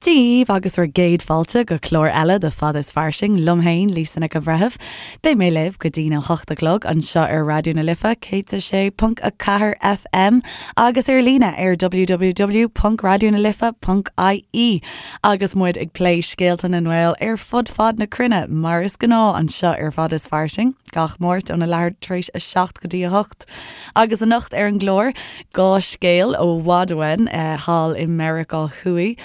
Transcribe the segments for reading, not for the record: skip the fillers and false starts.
Dia dhaoibh agus bhur gcéad fáilte go clár eile de Fada is Fairsing liom féin, Lisa Nic an Bhreithimh. Beidh mé libh go dtína 8 a chlog anseo ar Raidió na Life 106.4 FM agus ar líne ar www.raidionalife.ie agus muid ag plé scéalta na nGael ar fud fad na cruinne mar is gnáth anseo ar Fada is Fairsing gach Máirt óna leathuair tar éis a 7 go dtí a 8. Agus anocht ar an gclár, 2 scéal ó bhfad uainn, thall i Meiriceá Thuaidh.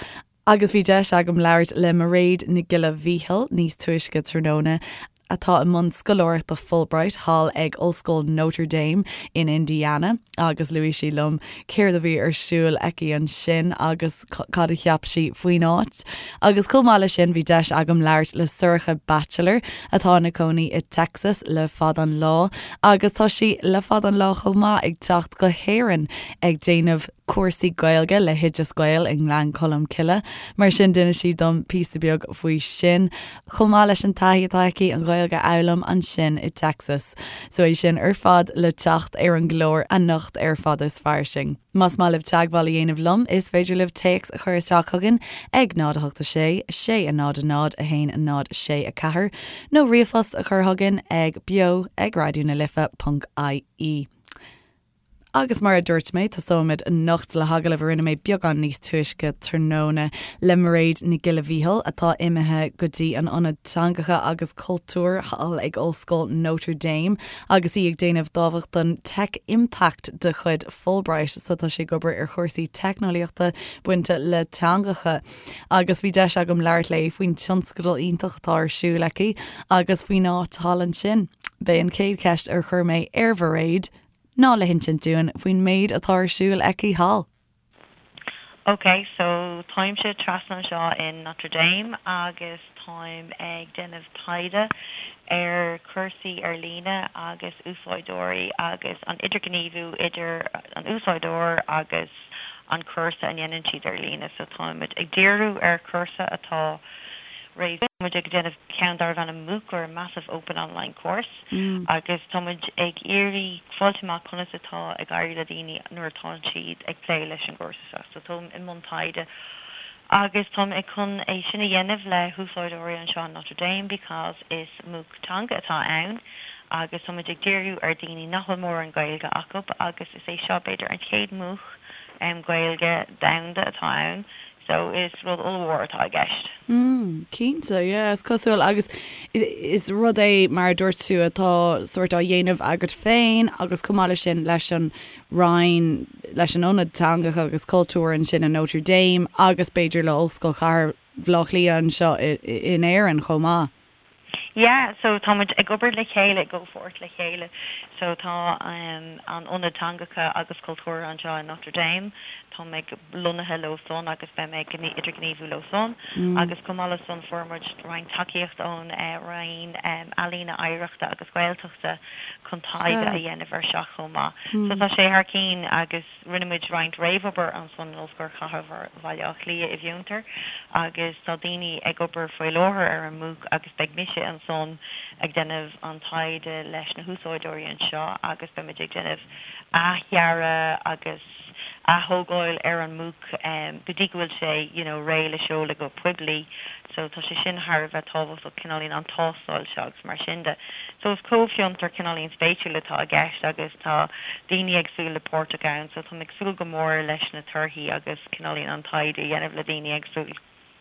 Agus bhí deis agam labhairt le Mairéad Nic Giolla Mhíchíl níos túisce tráthnóna, atá i mbun scoláireachta Fulbright thall ag Ollscoil Notre Dame in Indiana, agus luaigh sí liom céard a bhí ar siúl aici ansin agus cad a cheap sí faoin áit. Agus chomh maith leis sin bhí deis agam labhairt le Sorcha Batchelor atá ina cónaí i Texas le fada an lá agus tá sí le fada an lá chomh maith ag teacht go hÉirinn ag déanamh cúrsaí Gaeilge le hOideas Gael i nGleann Cholm Cille. Mar sin d'inis sí dom píosa beag faoi sin chomh maith leis an taithí atá aici an Ghaeilge a fhoghlaim ansin i Texas. So é sin ar fad le teacht ar an gclár anocht ar Fada is Fairsing. Más maith libh teagmháil a dhéanamh liom, is féidir libh téacs a chur isteach chugainn ag 0 8 6 6 0 0 1 0 6 4 nó ríomhphost a chur chugainn ag beo ag raidió na life ponc ie. Agus mar a dúirt mé, tosóimid anocht le hagallamh a rinne mé beagán níos túisce tráthnóna le Mairéad Nic Giolla Mhíchíl, atá imithe go dtí an Ionad Teangacha agus Cultúir thall ag Ollscoil Notre Dame agus í ag déanamh dámhachtain Tech Impact de chuid Fulbright so tá sí ag obair ar chúrsaí teicneolaíochta bainte le teangacha agus bhí deis agam labhairt léi faoin tionscadal iontach atá ar siúl aici agus faoin áit thall ansin. B'é an chéad cheist ar chuir mé ar Mhairéad ná le hinsint dúinn faoin méid atá ar siúl aici thall. Ok, so táimse trasna anseo in Notre Dame agus táim ag déanamh taighde ar chúrsaí ar líne agus úsáideoirí agus an idirghníomhú idir an úsáideoir agus an cúrsa a ndéanann siad ar líne. So táimid ag díriú ar chúrsa atá réidh. Táimid ag déanamh ceann darbh ainm MOOC or Massive Open Online Course. agus tá muid ag iarraidh fáilt amach conas atá ag éirí le daoine nuair atá siad ag plé leis an gcúrsa seo. So táim i mbun taighde agus táim ag chun é sin a dhéanamh le húsáideoirí anseo in Notre Dame because is MOOC teanga atá ann agus tá muid ag díriú ar daoine nach bhfuil mórán Gaeilge acu agus is é seo b'fhéidir an chéad MOOC Gaeilge domhanda atá ann So is rud ollmhór atá i gceist. Mm, cinnte, yeah, is cosúil agus is rud é mar a dúirt tú atá sórt á dhéanamh agat féin agus chomh maith leis sin leis an Roinn, leis an Ionad Teangacha agus Cultúir ansin in Notre Dame agus b'fhéidir le Ollscoil Chathair Bhaile Átha Cliath anseo in Éirinn chomh maith. Yeah, so tá muid ag obair le chéile, i gcomhpháirt le chéile. So tá an Ionad Teangacha agus Cultúrtha anseo in Notre Dame, tá mé lonnaithe leo san agus beidh mé ag idirghníomhú leo san. Agus chomh maith le san fuair muid roinnt tacaíocht ón Roinn Ealaíne, Oidhreachta agus Gaeltachta chun taighde a dhéanamh ar seo chomh maith. So tá sé thar cinn agus. Rinne muid roinnt réamhobair ansan in Ollscoil Chathair Bhaile Átha Cliath i bhFiontar agus tá daoine ag obair faoi láthair ar an MOOC agus beidh mise ansan ag déanamh an taighde leis na húsáideoirí anseo agus beidh muid ag déanamh athdhearadh agus ath-thógáil ar an MOOC go dtí go bhfuil sé you know réidh le seoladh go poiblí. So tá sé sin thar a bheith tábhachtach, cineáilín an tástáil seo agus mar sin de. So is comhfhiontar cineáilín spéisiúil atá i gceist agus tá daoine éagsúla páirteach ann so táim ag súil go mór leis na torthaí agus cineáilín an taighde a dhéanamh le daoine éagsúil.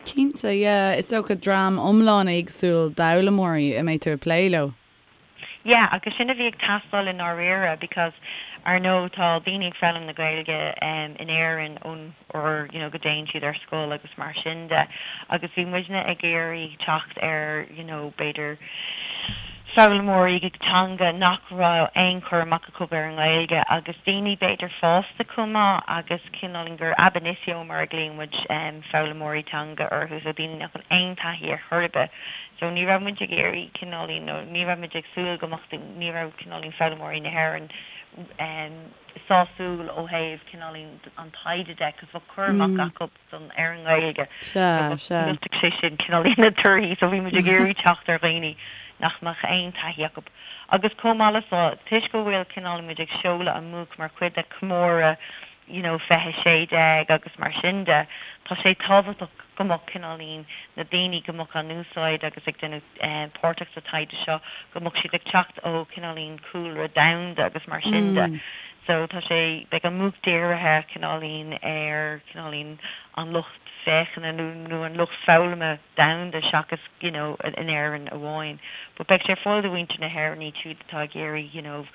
Cinnte, yeah. Is dócha dream iomlán éagsúil d'fhoghlaimeoirí a mbeidh tú ag plé leo. Yeah, agus sin a bhí ag teastáil i ndáiríre because ar ndóigh tá daoine ag foghlaim na Gaeilge in Éirinn ón uair you know go dtéann siad ar scoil agus mar sin de agus bhí muidne ag iarraidh teacht ar you know b'fhéidir foghlaimeoirí teanga nach raibh aon chur amach acu ar an nGaeilge agus daoine b'fhéidir fásta chomh maith agus cineál gur ab initio mar a ghlaonn muid foghlaimeoirí teanga orthu so daoine nach bhfuil aon taithí ar chor ar bith So ní raibh muid ag iarraidh cineáilín nó ní raibh muid ag súil go mbeadh, ní raibh cineáilín foghlaimeoirí na hÉireann sásúil ó thaobh cineáilín an taighde de 'cause bheadh cur amach acu san ar an nGaeilge so bheadh sé sin cineáilín na torthaí so bhí muid ag iarraidh teacht ar dhaoine nach mbeadh aon taithí acu. Agus chomh maith le so, toisc go bhfuil cineáilín muid ag seoladh an MOOC mar chuid de chomóradh you know 2016 agus mar sin de, tá sé tábhachtach. go mbeadh cineáilín na daoine go mbeadh á n-úsáid agus ag déanamh páirteach sa taighde seo, go mbeadh siad ag teacht ó cineáilín cúlra domhanda agus mar sin de. So tá sé, beidh an MOOC dírithe cineáilín ar cineáilín an lucht féachana nó nó an lucht foghlama domhanda seachas you know in Éirinn amháin. But beidh sé ar fáil do mhuintir na hÉireann iad siúd atá ag iarraidh you know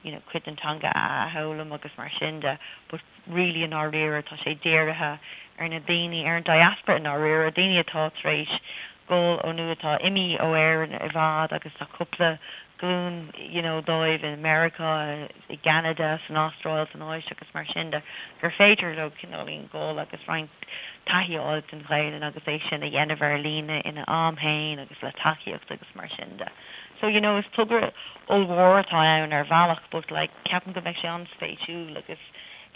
you know cuid den teanga a athfhoghlaim agus mar sin de. But really i ndáiríre tá sé dírithe ar na daoine, ar an diaspora i ndáiríre, daoine atá tar éis dul ó nó atá imithe ó Éirinn i bhfad agus tá cúpla glúin you know dóibh i Meiriceá, i gCeanada, san Astráil, san Áise agus mar sin de, gur féidir leo cineáilín dul agus roinnt taithí a fháil den Ghaelainn agus é sin a dhéanamh ar líne ina am féin agus le tacaíocht agus mar sin de. So you know is togra ollmhór atá ann ar bhealach but like ceapaim go mbeidh sé an-spéisiúil agus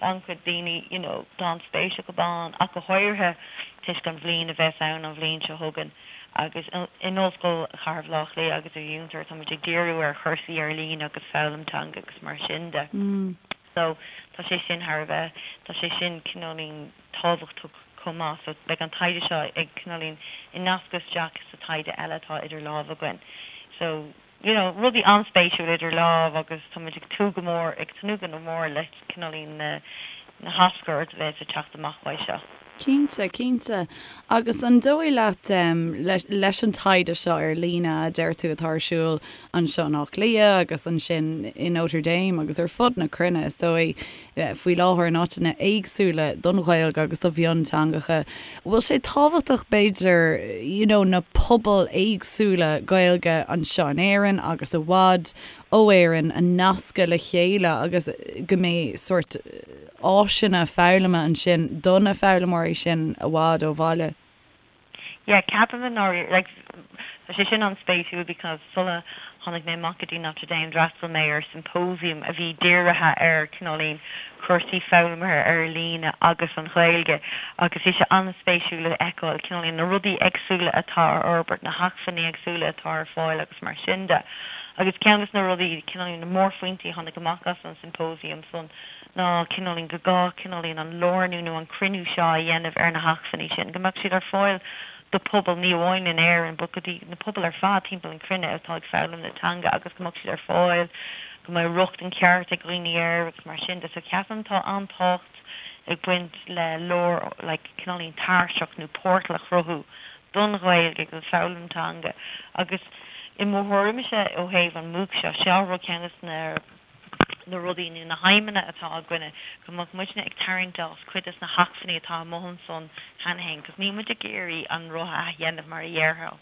tá an-chuid daoine you know tá an-spéis acu ann ach go háirithe toisc an bhliain a bheas ann an bhliain seo chugainn agus in Ollscoil Chathair Bhaile Átha Cliath agus i bhFiontar tá muid ag díriú ar chúrsaí ar líne agus foghlaim teanga agus mar sin de. So tá sé sin thar a bheith, tá sé sin cineáilín tábhachtach chomh maith. So beidh an taighde seo ag cineáilín ag nascadh isteach sa taighde eile atá idir lámha againn. So you know, rudaí an-spéisiúil idir lámh agus tá muid ag tnúth go mór, ag tnúth go mór le cineáilín na na haschuir a bheas ag teacht amach uaidh seo. Cinnte, cinnte. Agus an dóigh leat, leis an taighde seo ar líne a deir tú atá ar siúl anseo in Áth Cliath agus ansin i Notre Dame agus ar fud na cruinne is dóigh, faoi láthair in áiteanna éagsúla don Ghaeilge agus do mhionteangacha, bhfuil sé tábhachtach b'fhéidir you know na pobail éagsúla Gaeilge anseo in Éirinn agus i bhfad ó Éirinn a nascadh le chéile agus go mbeidh sórt áiseanna foghlama ansin do na foghlaimeoirí sin i bhfad ó bhaile? Yeah, ceapaim i ndáiríre, like, tá sé sin an-spéisiúil because sula tháinig mé amach go dtí Notre Dame d'fhreastail mé ar symposium a bhí dírithe ar cineáilín cúrsaí foghlama ar líne agus an Ghaeilge agus bhí sé an-spéisiúil a fheiceáil cineáilín na rudaí éagsúla atá ar fhorbairt, na hacmhainní éagsúla atá ar fáil agus mar sin de. Agus ceann de na rudaí, cineáilín na mórphointí a tháinig amach as an symposium san ná cineáilín go gá cineáilín an lárnú nó an cruinniú seo a dhéanamh ar na hacmhainní sin, go mbeadh siad ar fáil do pobal ní amháin in Éirinn but go dtí na pobail ar fad timpeall an chruinne atá ag foghlaim na teanga agus go mbeadh siad ar fáil, go mbeadh rochtain ceart ag dhaoine air agus mar sin de. So ceapaim tá an-tábhacht ag baint le lár like cineáilín tairseach nó portal a chruthú don Ghaeilge agus don foghlaim teanga agus i mo thuairimse ó thaobh an MOOC seo, seo rud ceann de na na rudaí nó na haidhmeanna atá againne, go mbeadh muidne ag tarraingt as cuid des na hacmhainní atá amuigh ansan cheana féin, 'cause níl muid ag iarraidh an roth a athdhéanamh mar a dhéarfá.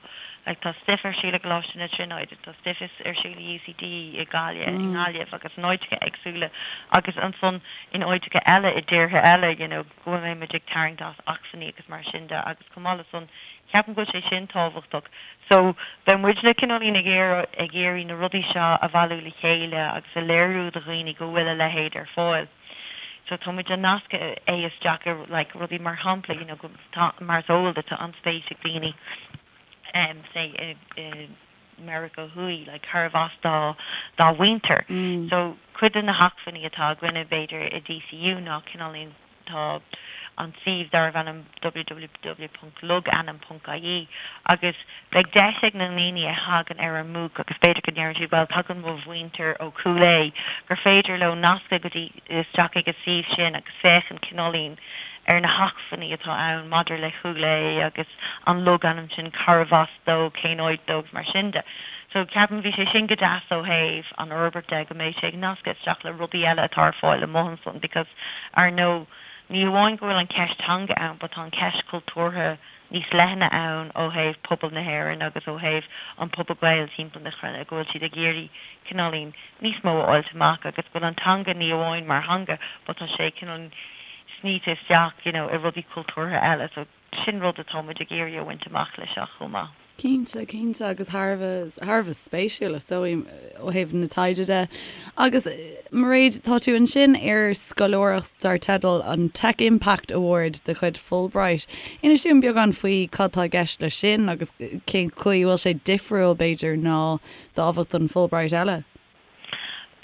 Like tá stuif ar siúl i gColáiste na Tríonóide, tá stuif ar siúl i UCD i Gaillimh, i nGaillimh agus in áiteacha éagsúla agus ansan in áiteacha eile i dtíortha eile, you know, go mbeidh muid ag tarraingt as acmhainní agus mar sin de agus chomh maith le san ceapaim go bhfuil sé sin tábhachtach. So beidh muidne cineáilín ag iarraidh ag iarraidh na rudaí seo a bhailiú le chéile agus a léiriú do dhaoine go bhfuil a leithéid ar fáil. So tá muid ag nascadh é isteach i like rudaí mar shampla you know go tá mar is eol duit tá an-spéis ag daoine em say i i Meiriceá Thuaidh like cárbh as dá dá mhuintir. So cuid de na hacmhainní atá againne b'fhéidir i DCU ná cineáilín tá an suíomh darbh ainm www.logainm.ie agus beidh deis ag na ndaoine a thagann ar an MOOC agus b'fhéidir go ndeireann siad bhuel tagann mo mhuintir ó Chúil Aodha gur féidir leo nascadh go dtí isteach ag an suíomh sin agus féachaint cineáilín ar na hacmhainní atá ann maidir le Cúil Aodha agus an logainm sin cárbh as dó, cén áit dó agus mar sin de. So ceapaim bhí sé sin go deas ó thaobh an fhorbairt de go mbeidh sé ag nascadh isteach le rudaí eile atá ar fáil amuigh ansan because ar ndóigh ní hamháin go bhfuil an ceist teanga ann but tá an ceist cultúrtha níos leithne ann ó thaobh pobal na hÉireann agus ó thaobh an pobal Gael timpeall na cruinne go bhfuil siad ag iarraidh cineáilín níos mó a fháilt amach agus go bhfuil an teanga ní amháin mar theanga but tá sé cineál snoite isteach you know i rudaí cultúrtha eile so Sin rud atá muid ag iarraidh a bhaint amach leis seo chomh maith. Cinnte, cinnte, agus thar a bheith, thar a bheith spéisiúil is dóigh ó thaobh na taighde de. Agus Mairéad, tá tú ansin ar scoláireacht dar teideal an Tech Impact Award de chuid Fulbright. Inis dúinn beagán faoi cad tá i gceist leis sin agus cén chaoi a bhfuil sé difriúil b'fhéidir ná dámhachtain Fulbright eile.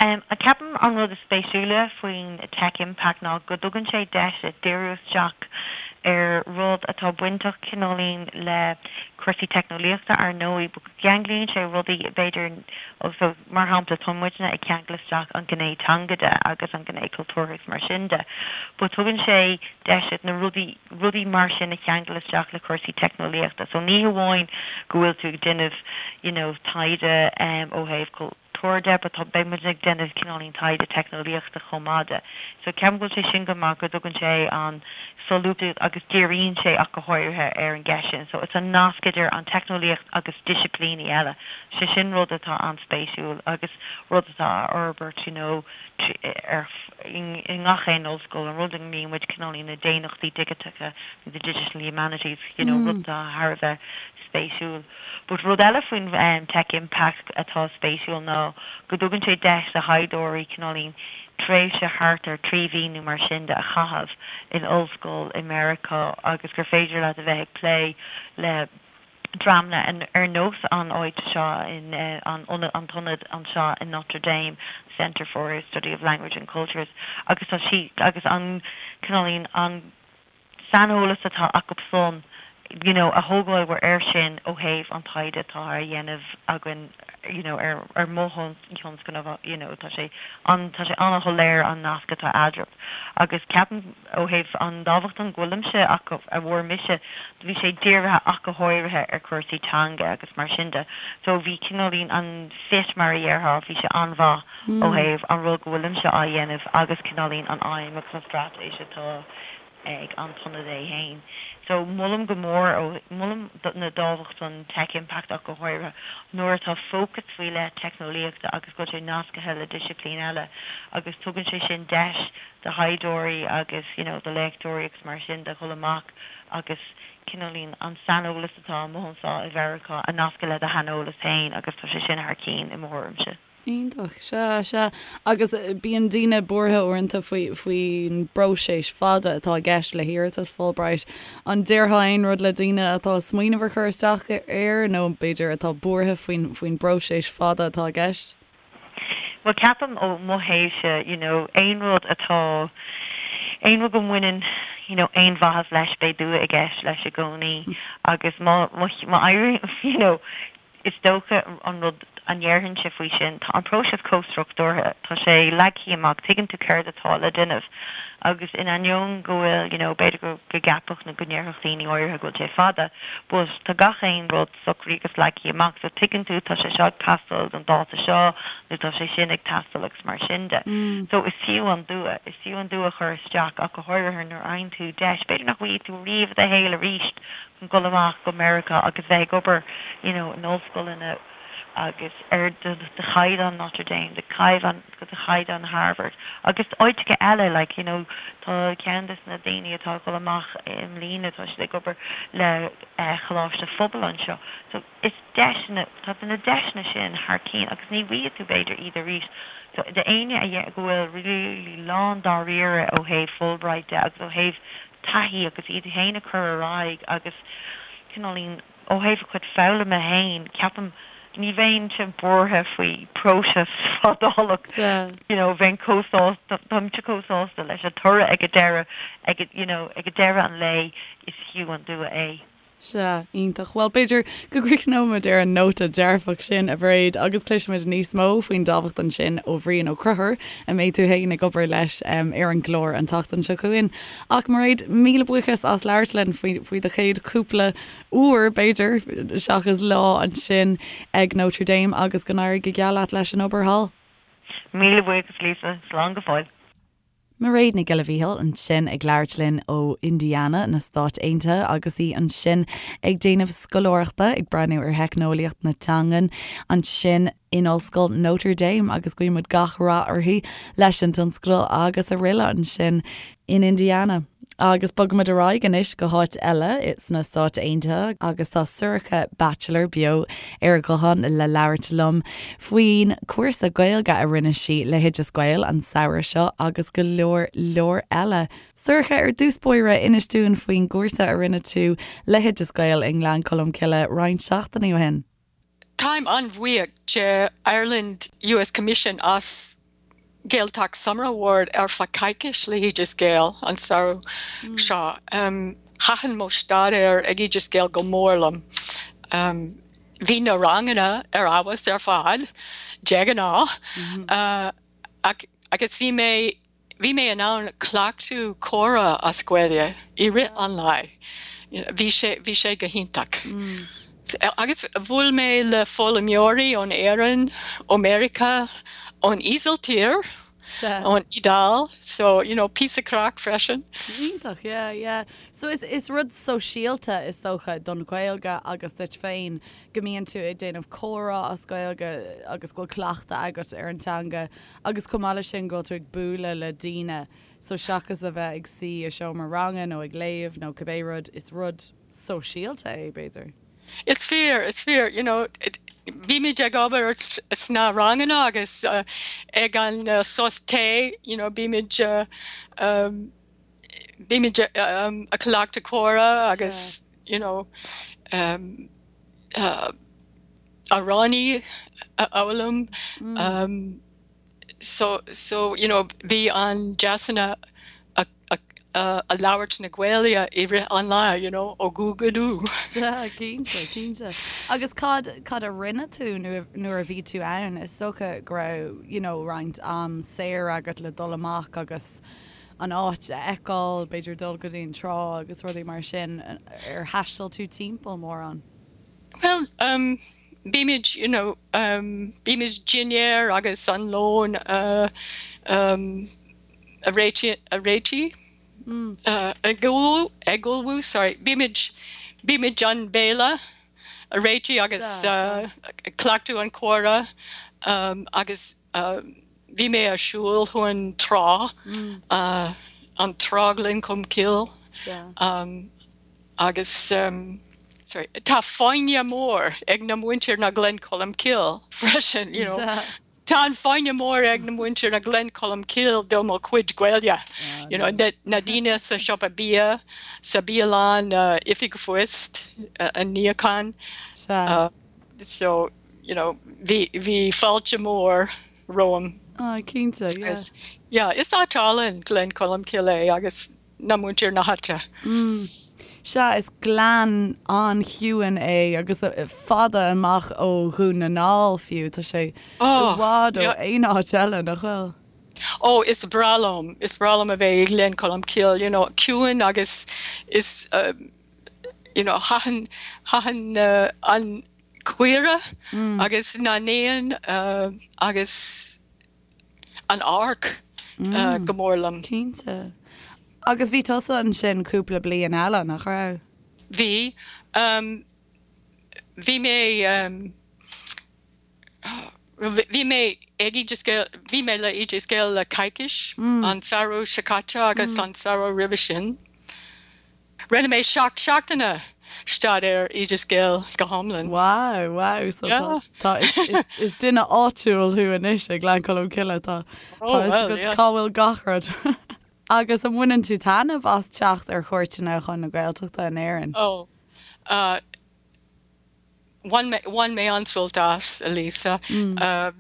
Ceapaim an rud is spéisiúla faoin Tech Impact ná go dtugann sé deis díriú isteach. ar rud atá bainteach cineáilín le cúrsaí teicneolaíochta ar ndóigh but go gceanglaíonn sé rudaí b'fhéidir so mar shampla tá muidne ag ceangal isteach an ghné teanga de agus an ghné cultúrtha agus mar sin de but tugann sé deis duit na rudaí rudaí mar sin a cheangal isteach le cúrsaí teicneolaíochta so ní hamháin go bhfuil tú ag déanamh you know taighde ó thaobh cultúir de but tá beidh muid ag déanamh cineáilín taighde teicneolaíochta chomh maith de. So ceapaim go bhfuil sé sin go maith go dtugann sé an solúbthacht agus díríonn sé ach go háirithe ar an gceist sin. So it's an nasc idir an teicneolaíocht agus disciplíní eile. Sé sin rud atá an-spéisiúil agus rud atá á fhorbairt you know ar i ngach aon ollscoil, an rud a nglaonn muid cineáilín na daonnachtaí digiteacha, the digital humanities, you know rud atá thar a bheith spéisiúil. But rud eile faoin Tech Impact atá spéisiúil ná go dtugann sé deis do thaighdeoirí cineáilín tréimhse thart ar 3 mhí nó mar sin de a chaitheamh in ollscoil i Meiriceá agus gur féidir leat a bheith ag plé le dreamanna ar nós an áit seo in an an t-ionad anseo in Notre Dame, Center for Study of Language and Cultures agus tá sí agus an cineáilín an saineolas atá acu san you know a thógáil air sin ó thaobh an taighde atá á dhéanamh againn you know ar ar mo thionscnamh you know tá sé an tá sé an-shoiléir an nasc atá eadraibh agus ceapaim ó thaobh an dámhachtain go bhfuilimse acu a bhfuair mise bhí sé dírithe ach go háirithe ar chúrsaí teanga agus mar sin de so bhí cineáilín an fit mar a dhéarfá bhí sé an-mhaith ó thaobh an rud go bhfuilimse á dhéanamh agus cineáilín an aidhm agus an straitéis atá ag an t-ionad é fhéin. So, molaim go mór ó, molaim na dámhachtain Tech Impact ach go háirithe nuair atá fócas faoi leith teicneolaíochta agus go bhfuil sé nascaithe le disciplín eile agus tugann sé sin deis do thaighdeoirí agus you know do léachtóirí agus mar sin de dhul amach agus cineáilín an saineolas atá amuigh anseo i Mheiriceá a nascadh le do shaineolas féin agus tá sé sin thar cinn i mo thuairimse. Iontach. Sea, sea. Agus bíonn daoine buartha uaireanta faoi, faoin bpróiseas fada atá i gceist le hiarratas Fulbright. An déarfá aon rud le daoine atá ag smaoineamh ar chur isteach air nó b'fhéidir atá buartha faoin, faoin bpróiseas fada atá i gceist? Bhuel, ceapaim ó mo thaobhse, you know, aon rud atá, aon rud go mbaineann, you know, aon mhaitheas leis, beidh dua i gceist leis i gcónaí agus má, má, má éiríonn, you know, Is dócha an rud a ndéarfainnse faoi sin, tá an próiseas chomh struchtúrtha, tá sé leagtha amach, tuigeann tú céard atá le déanamh agus in ainneoin go bhfuil, you know, b'fhéidir go gceapfadh nó go ndéarfadh daoine áirithe go bhfuil sé fada, but tá gach aon rud socraithe agus leagtha amach so tuigeann tú tá sé seo ag teastáil don dáta seo nó tá sé sin ag teastáil agus mar sin de. So is fiú an dua, is fiú an dua a chur isteach ach go háirithe nuair a fhaigheann tú deis, b'fhéidir nach bhfaighidh tú riamh i do shaol arís dul amach go Meiriceá agus bheith ag obair you know in ollscoileanna agus ar de chaighdeán Notre Dame, de chaighdeán de chaighdeán Harvard agus áiteacha eile like you know tá ceann des na daoine atá ag dul amach i mbliana tá siad ag obair le Coláiste Phobail anseo so is deiseanna tá na deiseanna sin thar cinn agus ní bhfaighidh tú b'fhéidir iad arís so d'éinne a go bhfuil really lán dáiríre ó thaobh Fulbright de agus ó thaobh taithí agus iad féin a chur ar aghaidh agus cineáilín ó thaobh a chuid foghlama féin, ceapaim, ní bheinnse buartha faoi próiseas fadálach, you know, bheinn chomh sásta, táimse chomh sásta leis an toradh ag an deireadh, ag, you know, ag deireadh an lae is fiú an dua é. Sea, iontach. Bhuel, b'fhéidir go gcríochnóimid ar an nóta dearfach sin, a Mhairéad, agus cloisfimid níos mó faoin dámhachtain sin ó Bhrian Ó Conchúir, a mbeidh tú féin ag obair leis ar an gclár an tseachtain seo chugainn. Ach, Mairéad, míle buíochas as labhairt linn faoi faoi do chéad chúpla uair, b'fhéidir, seachas lá ansin ag Notre Dame agus go n-éirí go geal leat leis an obair thall. Míle buíochas, Lisa. Slán go fóill. Mairéad Nic Giolla Mhíchíl ansin ag labhairt linn ó Indiana na Stáit Aontaithe agus í ansin ag déanamh scoláireachta ag breathnú ar theicneolaíocht na teangan ansin in Ollscoil Notre Dame agus guímid gach rath uirthi leis an tionscadal agus araile ansin in Indiana. Agus bogfaimid ar aghaidh anois go háit eile sna Stáit Aontaithe agus tá Sorcha Batchelor beo ar an ghuthán le labhairt liom faoin cúrsa Gaeilge a rinne sí le hOideas Gael an samhradh seo agus go leor leor eile. Sorcha, ar dtús báire, inis dúinn faoin gcúrsa a rinne tú le hOideas Gael i nGleann Cholm Cille roinnt seachtainí ó shin. Táim an-bhuíoch de Ireland US Commission as Gaeltacht Summer Award ar feadh coicís le hOideas Gael an samhradh seo. Thaitin mo staidéar ag Oideas Gael go mór liom. Bhí na ranganna ar fheabhas ar fad, de ghnáth, agus bhí mé bhí mé in ann cleachtadh comhrá as Gaeilge i rith an lae. Bhí sé bhí sé go hiontach. Agus bhuail mé le foghlaimeoirí ón Éirinn, ó Meiriceá, ón Ísiltír. Ón Iodáil, so, you know, píosa craic freisin. Iontach, yeah, yeah. So is, is rud sóisialta is dócha don Ghaeilge agus duit féin go mbíonn tú ag déanamh comhrá as Gaeilge agus go bhfuil cleachtadh agat ar an teanga agus chomh maith leis sin go bhfuil tú ag bualadh le daoine so seachas a bheith ag suí i seomra ranga nó ag léamh nó cibé rud, is rud sóisialta é, b'fhéidir. Is fíor, is fíor, you know, bímid ag obair sna ranganna agus ag an sos tae, you know, bímid, bímid ag cleachtadh comhrá agus, you know, amhráin a fhoghlaim. So, so, you know, bhí an deiseanna a, a, a labhairt na Gaeilge i rith an lae, you know, ó go go dú. Sea, cinnte, cinnte. Agus cad, cad a rinne tú nuair, nuair a bhí tú ann? Is dócha go raibh, you know, roinnt am saor agat le dul amach agus an áit a fheiceáil, b'fhéidir dul go dtí an trá agus rudaí mar sin. Ar thaistil tú timpeall mórán? Bhuel, um, bímid, you know, um, bímid dinnéar agus an lón a, um, a réitigh, a réitigh, uh, ag ullmhú, ag ullmhú, sorry, bímid, bímid an béile a réitigh agus, uh, cleachtadh an comhrá, um, agus, uh, bhí mé ag siúl chun trá, uh, an trá Ghleann Cholm Cille, um, Agus sorry, tá foighne mór ag na muintir na Gleann Cholm Cille freisin, you know. Tá an foighne mór ag na muintir na Gleann Cholm Cille do mo chuid Gaeilge, you know, na daoine sa siopa bia, sa bialann, oifig phoist, an níochán. So, you know, bhí, bhí fáilte mór romham. Ah, cinnte, yeah. Yeah, is áit álainn Gleann Cholm Cille é agus na muintir na háite. Sea, is gleann an-chiúin é agus fada amach ó Dhún na nGall fiú. Tá sé i bhfad ó aon áit eile, nach bhfuil? Ó, is breá liom, is breá liom a bheith i nGleann Cholm Cille, you know, ciúin agus is, you know, thaitin, thaitin an caora agus na n-éan agus. an amharc go mór liom. Cinnte. Agus bhí tusa ansin cúpla bliain eile, nach raibh? Bhí. Bhí mé, bhí mé ag Oideas Gael, bhí mé le Oideas Gael le coicís, an samhradh seo caite agus an samhradh roimhe sin. Rinne mé 7 seachtaine staidéar Oideas Gael go hiomlán. Wow, wow, so tá, tá, is, is duine áitiúil thú anois ag Gleann Cholm Cille, tá, tá fhios agat cá bhfuil gach rud. Agus an mbaineann tú taitneamh as teacht ar chuairteanna chun na Gaeltachta in Éirinn? Oh, uh, bhain mé, bhain mé an-sult as, a Lisa. Uh,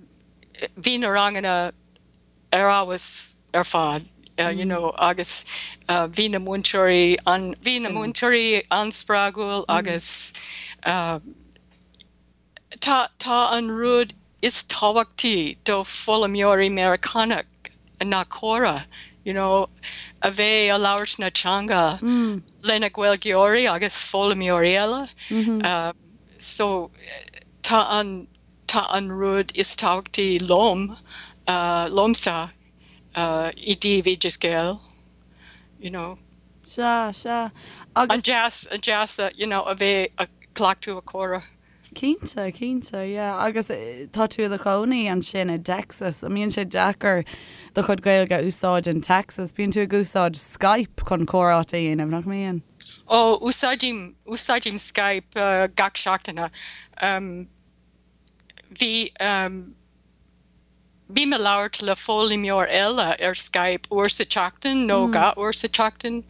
bhí na ranganna ar fheabhas ar fad you know agus bhí na múinteoirí an, bhí na múinteoirí an-spreagúil agus tá, tá an rud is tábhachtaí do foghlaimeoirí Meiriceánach ná comhrá you know a bheith a labhairt na teanga lena Gaeilgeoirí agus foghlaimeoirí eile so tá an Tá an rud is tábhachtaí liom, liomsa, i dtaobh Oideas Gael, you know. Sea, sea. Agus. An deas, an deas, you know, a bheith ag cleachtadh a comhrá. Cinnte, cinnte, yeah. Agus tá tú i do chónaí ansin i dTexas. An mbíonn sé deacair do chuid Gaeilge a úsáid in Texas? Bíonn tú ag úsáid Skype chun comhráite a dhéanamh, nach mbíonn? Ó, úsáidim, úsáidim Skype gach seachtaine. Bhí, bím ag labhairt le foghlaimeoir eile ar Skype uair sa tseachtain nó 2 uair sa tseachtain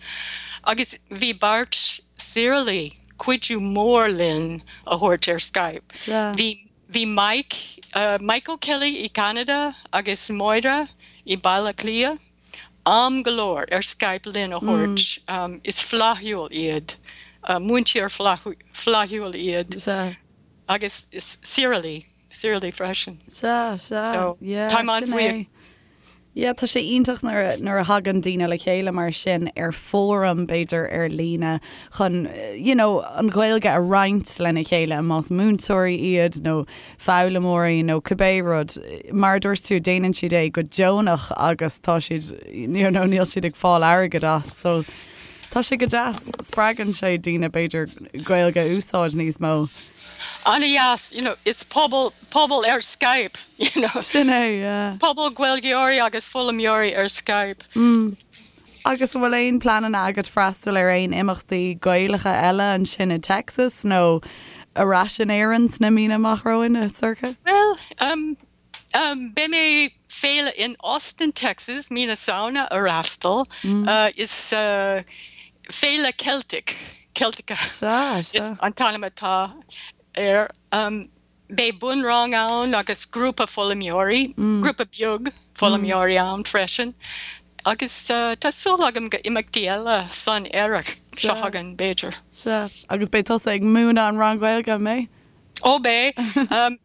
agus bhí beirt Saorálaí cuidiú mór linn a thabhairt ar Skype. Bhí, bhí Mike, Mike O'Kelly i gCeanada agus Máire i Baile Átha Cliath. am go leor ar Skype linn a thabhairt. Is flaithiúil iad, múinteoir flaithiúil iad. Sea. Agus is Sirley, Sirley freisin. Sea, sea. So, Yeah, táim sin é. an-bhuíoch. Yeah, tá sé iontach nuair a, nuair a thagann daoine le chéile mar sin ar fóram, b'fhéidir, ar líne chun, you know, an Ghaeilge a roinnt lena chéile, más múinteoirí iad nó foghlaimeoirí nó cibé rud. Mar a dúirt tú, déanann siad é go deonach agus tá siad, you know, níl siad ag fáil airgead as. So, tá sé go deas, spreagann sé daoine, b'fhéidir, Gaeilge a úsáid níos mó. An-dheas, you know, is pobal, pobal ar Skype, you know. Sin é, yeah. Pobal Gaeilgeoirí agus foghlaimeoirí ar Skype. Mm. Agus an bhfuil aon pleananna agat freastal ar aon imeachtaí Gaelacha eile ansin i Texas nó ar ais in Éirinn sna míonna amach romhainn, a Sorcha? Bhuel, beidh mé féile in Austin, Texas, mí na Samhna a fhreastal. Is féile Celtic, Celtica is an t-ainm atá air. Beidh bunrang ann agus grúpa foghlaimeoirí, grúpa beag foghlaimeoirí ann freisin. Agus tá súil agam go imeachtaí eile san earrach seo chugainn, b'fhéidir. Sea. Agus beidh tusa ag múineadh an rang Gaeilge, an mbeidh? Ó beidh.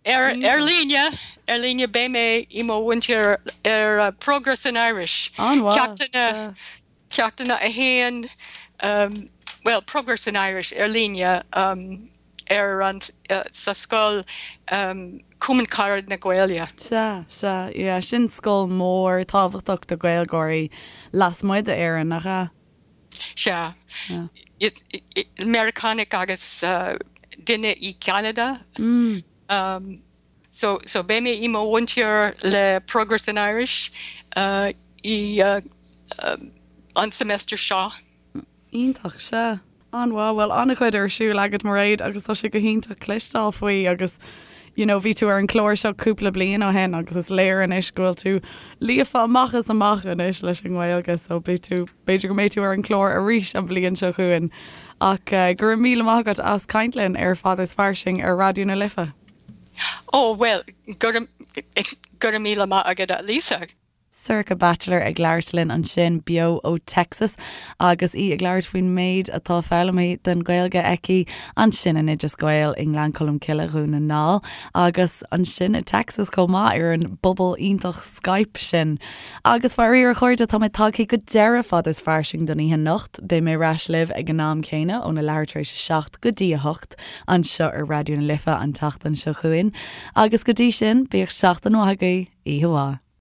Ar líne, ar líne beidh mé i mo mhúinteoir ar Progress in Irish. An-mhaith. Ceachtanna Ceachtanna 1, bhuel, Progress in Irish ar líne ar an, sa scoil Cumann Carad na Gaeilge. Sea, sea, yeah, sin scoil mór tábhachtach do Ghaeilgeoirí lasmuigh d'Éirinn, nach ea? Sea. Meiriceánach agus duine i gCeanada. So, so beidh mé i mo mhúinteoir le Progress in Irish i an semester seo. Iontach, sea. An-mhaith. Bhuel, an-chuid ar siúl agat, Mairéad, agus tá sé go hiontach cloisteáil faoi agus you know, bhí tú ar an chlár seo cúpla bliain ó shin agus is léir anois go bhfuil tú líofa amach is amach anois leis an nGaeilge so beidh tú, b'fhéidir go mbeidh tú ar an chlár arís an bhliain seo chugainn. Ach go raibh míle maith agat as caint linn ar Fad is Fairsing ar Raidió na Life. Ó, bhuel, go raibh, go raibh míle maith agat, a Lisa. Sorcha Batchelor ag labhairt linn ansin beo ó Texas agus í ag labhairt faoin méid atá foghlamtha den Ghaeilge aici ansin in Oideas Gael i nGleann Cholm Cille, Dhún na nGall agus ansin i Texas chomh maith ar an bpobal iontach Skype sin. Agus faraor a chairde tá mé tagtha go deireadh Fad is Fairsing don oíche anocht. Beidh mé ar ais libh ag an am céanna óna leathuair tar éis a 7 go dtí a 8. anseo ar Raidió na Life an tseachtain seo chugainn agus go dtí sin, bíodh seachtain mhaith agaibh, oíche mhaith.